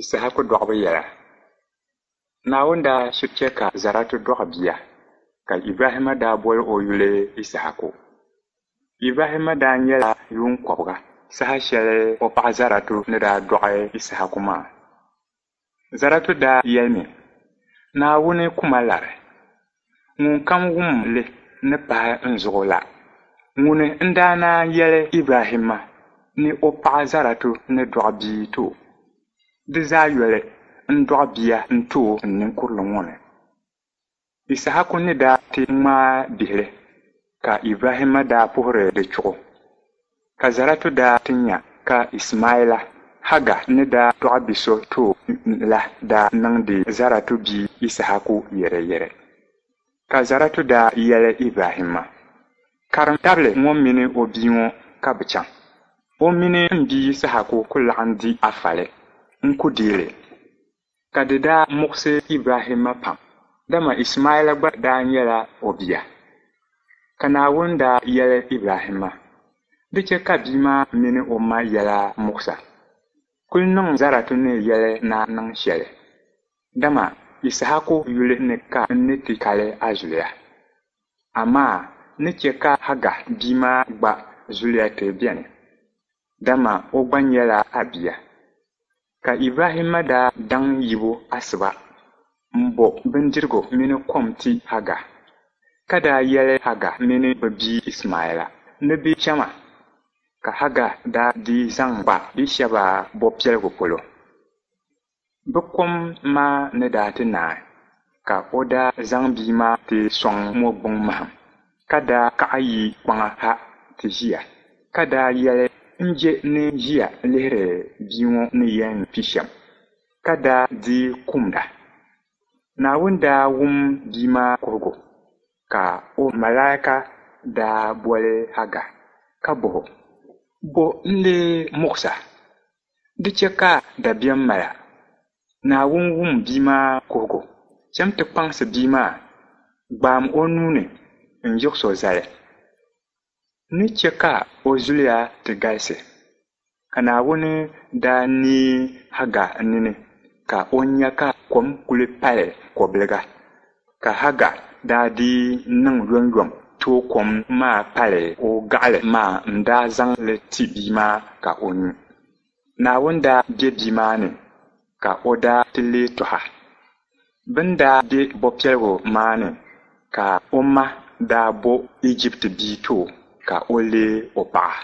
Issahaku dɔɣibu yɛla. Naawuni daa shiri chɛ ka Zaratu dɔɣi bia, ka Ibrahimma daa bol o yuli Issahaku. Ibrahimma daa nyɛla yuun kɔbiga saha shɛli o paɣ Zaratu ni daa dɔɣi Issahaku maa. Zaratu daa yɛlimi, Naawuni ku ma lari. Ŋunkam wum li ni pahi n zuɣu la. Ŋuni n-daa naan yɛli Ibrahimma ni o paɣ Zaratu ni dɔɣi bia ti o? Di zaa yoli, n dɔɣi bia n-ti o n ninkurili ŋɔ ni. Issahaku ni daa ti ŋmaai bihili, ka Ibrahimma daa puhiri di chuɣu. Ka Zaratu daa ti nya ka Ismaila, Haga ni daa dɔɣi bi so ti o la daa niŋdi Zaratu bia Issahaku yɛrɛyɛrɛ. Ka Zaratu daa yɛli Ibrahimma, Karim tabili ŋɔ mini o bia ŋɔ ka bɛ chaŋ. O mini m bia Yisahaku ku laɣim di a fali, n ku deei li. Ka di daa muɣisi Ibrahimma pam, dama Ismaila gba daa nyɛla o bia. Ka Naawuni daa yɛli Ibrahimma, Di chɛ ka bia maa mini o ma yɛla muɣis a. Kul niŋ Zaratu ni yɛli ni a niŋ shɛli, dama Yisahaku yuli ni ka n ni ti kali a zuliya. Amaa n ni chɛ ka Haga bia maa gba zuliya ti beni, dama o gba nyɛla a bia. Ka Ibrahimma daa daŋ yibu asiba m-bo bindirigu mini kom ti Haga, ka daa yɛli Haga mini bɛ bia Ismaila ni bɛ chama, ka Haga daa dii zaŋ kpa Biishɛba bɔpiɛligu polo. Bɛ kom maa ni daa ti naai, ka o daa zaŋ bia maa ti sɔŋ mɔgbuŋ mahim, ka daa kaɣi yi kpaŋa ha ti ʒiya, ka daa yɛli, N je ni ʒiya lihiri bia ŋɔ ni yɛn kpi shɛm, ka daa dii kumda. Naawuni daa wum bia maa kuhigu, ka o malaika daa boli Haga ka bɔh o, Bɔ n-lee muɣis a? Di chɛ ka dabiɛm mal a. Naawuni wum bia maa kuhigu. Cham ti kpaŋsi bia maa, gbaam o nuu ni n-yiɣis o zali. N ni chɛ ka o zuliya ti galisi. Ka Naawuni daa neei Haga nini ka o nya ka kom kuli pali kɔbiliga, ka Haga daa dii niŋ yomyom tooi kom maa pali o gaɣili maa n-daa zaŋ li ti bia maa ka o nyu. Naawuni daa be bia maa ni, ka o daa ti leei tɔha. Bɛ ni daa be bɔpiɛligu maa ni, ka o ma daa bo Ijipti bia ti o ka o leeg o paɣa.